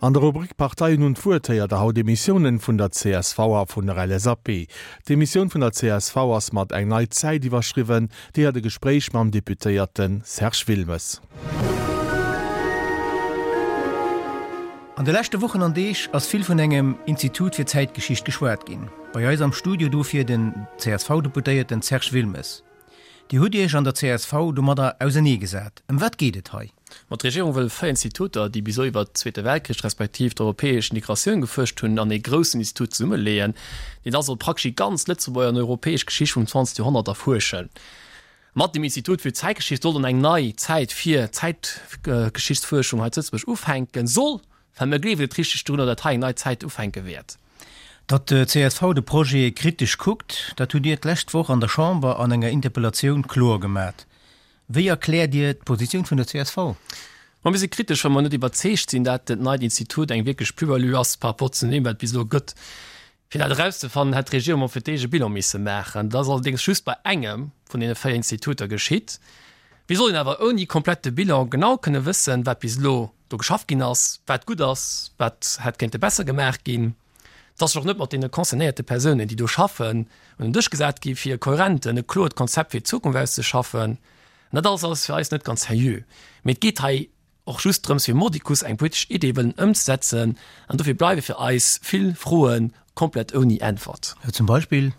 An der Rubrik Parteien hunn d'Wuert héiert der haut Emissiounen vun der csv a vun der LSAP. D'Emissioun vun der csv ass mat Eng nei Zäit iwwerschriwwen. Déi hat e Gespréich mam Deputéierte Serge Wilmes. An de leschte Wochen an Deeg ass vill vun engem Institut fir Zäitgeschicht geschwat ginn. Bei eis am Studio dofir den CSV-Deputéierten Serge Wilmes. Dir hutt Iech an der csv domadder ausenee gesat. Ëm wat geet et hei? Ma d'Regierung wëll 4 Instituter, déi bis elo iwwert Zweete Weltkrich respektiv d'europäesch Integratioun gefuerscht hunn, an ee groussen Institut zesummeleeën, deen da soll praktesch déi ganz Lëtzebuerger an europäesch Geschicht vum 20. Joerhonnert erfuerschen. Mat dem Institut fir Zäitgeschicht soll dann eng nei Zäit fir d'Zäitgeschichtsfuerschung hei zu Lëtzebuerg ufänken. Soll, well mir gleewen net richteg drunner, datt hei eng nei Zäit ufänke wäert. Datt d'CSV de Projet kritesch kuckt, dat hutt Dir d'lescht Woch an der Chamber an enger Interpellatioun kloer gemat. Wéi erkläert Dir d'Positioun vun der csv? Ma mir si kritesch, well mer net iwwerzeegt sinn, dat dat neit Institut eng wierklech Plus-value ass par rapport zu deem, wat et bis elo gëtt. Fir dat erauszefannen, hätt d'Regierung mol fir d'éischt e Bilan misse maachen. Dat ass allerdéngs just bei engem vun deene 4 Instituter geschitt. Wéi soll een awer ouni komplette Bilan genau kënne wëssen, wat bis elo do geschafft ginn ass, wat gutt ass, wat hätt kéinte besser gemaach ginn? Et ass sech och net mat deene concernéierte Persounen, déi do schaffen, un den Dësch gesat gi fir e kohärenten, e kloert Konzept fir d'Zukunft auszeschaffen. An dat alles ass fir eis net ganz seriö. Mee et geet hei och just drëms fir mordicus eng politesch Idee wëllen ëmzesetzen an dofir bleiwe fir eis vill Froe komplett ouni Äntwert. Zum Beispill?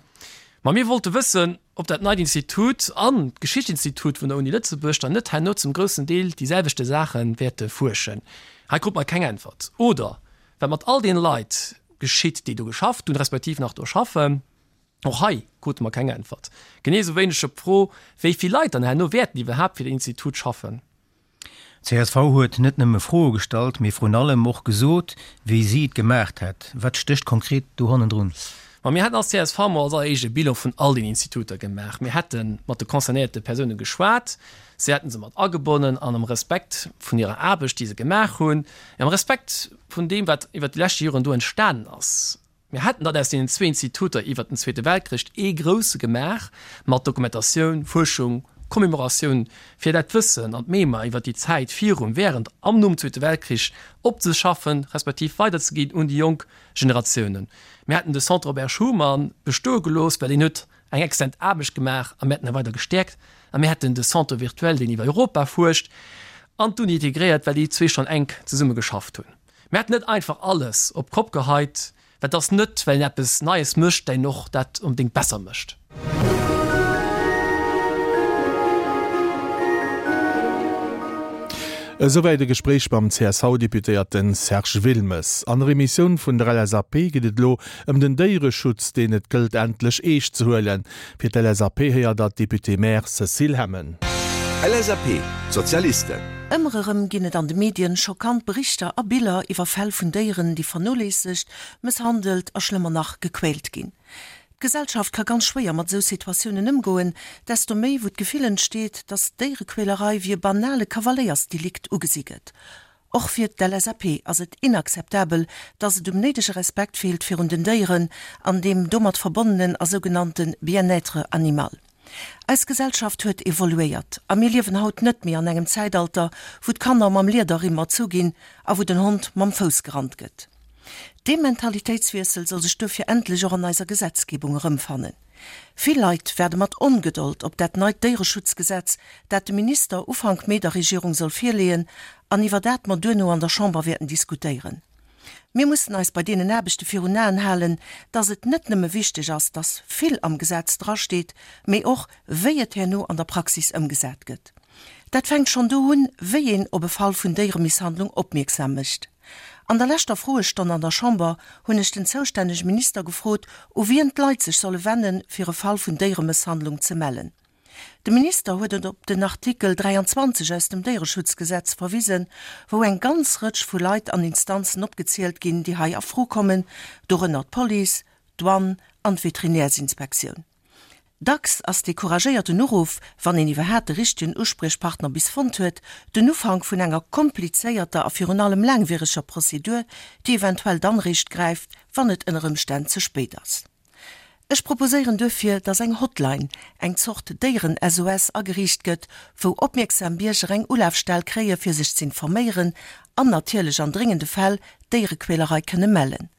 Ma mir wollte wëssen, ob dat neit Institut an d'Geschichtsinstitut vun der Uni Lëtzebuerg dann net herno zum groussen Deel déi selwechte Saache wäerte fuerschen. Hei krute mer keng Äntwert. Oder wat mat all deene Leit geschitt, déi do geschafft hunn, respektiv nach do schaffen. Och hei krute mer keng Äntwert. Genee esou wéineg op d'Fro, wéi vill Leit dann herno wäerten iwwerhaapt fir den Institut schaffen. Csv huet net nëmme Froe gestallt, mee vrun allem och gesot, wéi si et gemaacht hätt. Wat stécht konkret do hannendrun? Ma mir hätten als csv mol als alleréischt e Bilan vun all den Instituter gemaach. Mir hätte mat de concernéierte Persoune geschwat, si hätte se mat agebonnen an am Respekt vun hirer Aarbecht, déi se gemaach hunn, am Respekt vun deem, wat iwwert déi leschte Joren do entstanen ass. Mir hätten dann aus deenen zwee Instituter iwwert den Zweete Weltkrich ee grousse gemaach, mat Dokumentatioun, Fuerschung, Commemoratioun, fir dat Wëssen an d'Mémoire iwwert déi Zäit virum, während an nom Zweete Weltkrich opzeschaffen, respektiv weiderzeginn un déi jonk Generatiounen. Mir hätten de Centre Robert Schuman bestoe gelooss, well deen huet eng exzellent Aarbecht gemaach a mir hätten e weider gestäerkt. A mir hätten de Centre virtuel, deen iwwer Europa fuerscht, an d'Uni integréiert, well déi zwee schonn enk zesumme geschafft hunn. Mir hätten net einfach alles op d'Kopp geheit, well et ass net, well een eppes Neies mécht, dat een och dat onbedéngt besser mécht. Esouwäit e Gespréich mam CSV-Deputéierten Serge Wilmes. An der Emissioun vun der LSAP geet et elo ëm den Déiereschutz, deen et gëllt endlech eescht ze huelen. Fir d'LSAP héiert der d'Députée-maire Cécile Hemmen. LSAP, D'Sozialisten. Ëmmer erëm ginn et an de Medien schockant Berichter a Biller iwwer Fäll vun Déieren, déi vernoléissegt, mësshandelt a schlëmmer nach, gequält ginn. D'Gesellschaft ka ganz schwéier mat esou Situatiounen ëmgoen, desto méi wou d'Gefill entsteet, datt Déierequälerei wéi e banale Kavaléiersdelikt ugesi gëtt. Och fir d'LSAP ass et inakzeptabel, dass et um néidege Respekt feelt virun den Déieren an deem domat verbonnenen a sougenannte Bien-être animal. Eis Gesellschaft huet evoluéiert a mir liewen haut net méi an engem Zäitalter, wou d'Kanner mam Liederrimm erzu ginn a wou den Hond mam Fouss gerannt gëtt. Dee Mentalitéitswiessel soll sech duerfir endlech och an eiser Gesetzgebung erëmfannen. Vill Leit waarde mat Ongedold op dat neit Déiereschutzgesetz, dat de Minister Ufank Mee der Regierung soll virleeën an iwwer dat mer duerno an der Chamber wäerten diskutéieren. Mir mussen eis bei deenen Aarbechte virun Aen halen, dass et net nëmme wichteg ass, dass vill am Gesetz drasteet, mee och, wéi et herno an der Praxis ëmgesat gëtt. Dat fänkt schonn do un, wéi een op e Fall vun Déieremisshandlung opmierksam mécht. An der leschter Froestonn an der Chamber hunn ech den zoustännege Minister gefrot, u wien d'Leit sech solle wennen, fir e Fall vun Déieremësshandlung ze mellen. De Minister huet et op den Artikel 23 aus dem Déiereschutzgesetz verwisen, wou eng ganz Rëtsch vu Leit an Instanzen opgezielt ginn, déi hei a Fro kommen, dorënner d'Police, d'Douane an d'Veterinärsinspektioun. Dacks ass dee couragéierten Uruff, wann een iwwerhaat de richtegen Uspriechpartner bis fonnt huet, den Ufank vun enger komplizéierter a virun allem laangwiereger Prozedur, déi eventuell dann réischt gräift, wann et ënner Ëmstänn ze spéit ass. Ech proposéieren duerfir, dass eng Hotline, eng Zort Déieren-SOS, ageriicht gëtt, wou opmierksam Bierger eng Ulafstell kréie fir sech z'informéieren an natierlech an dréngende Fäll Déierequälerei kënne mellen.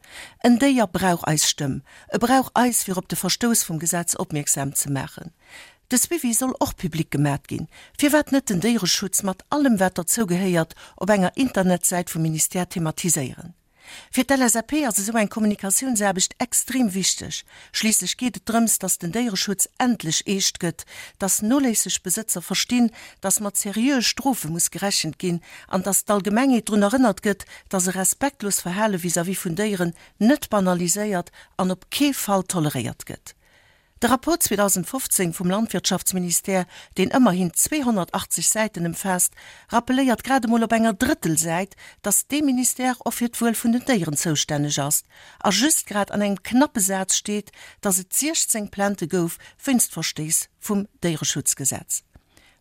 En Déier brauch eis Stëmm, e brauch eis fir op de Verstouss vum Gesetz opmierksam ze maachen. De Suivi soll och public gemat ginn. Firwat net den Déiereschutz mat allem wat derzou gehéiert op enger Internetsäit vum Ministère thematiséieren? Fir d'LSAP ass esou eng Kommunikatiounsaarbecht extrem wichteg. Schliisslech geet et drëms, dass den Déiereschutz endlech eescht gëtt, dass noléisseg Besëtzer verstinn, dass mat seriöe Strofe muss gerechent ginn an dass d'Allgemengheet drun erënnert gëtt, dass e respektlos Verhale vis-à-vis vun Déieren net banaliséiert an op kee Fall toleréiert gëtt. De Rapport 2015 vum Landwirtschaftsministère, deen ëmmerhin 280 Säiten ëmfaasst, rappeléiert grad emol op enger Drëttelsäit, datt dee Ministère och fir d'Wuel vun den Déieren zoustänneg ass. A just grad an engem knappe Saz steet, datt et 16 Plaintë gouf wéinst Verstéiss vum Déiereschutzgesetz.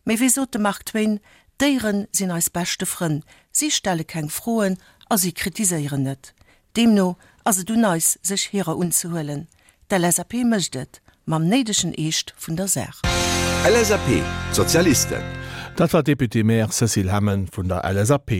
Mee wéi sot de Mark Twain, D'Déiere sinn eis beschte Frënn, si stelle keng Froen a si kritiséieren net. Deemno ass et un eis, sech hirer unzehuelen. D'LSAP mécht et, mam néidegen Eescht vun der Saach. LSAP, D'Sozialisten. Dat war d'Députée-maire Cécile Hemmen vun der LSAP.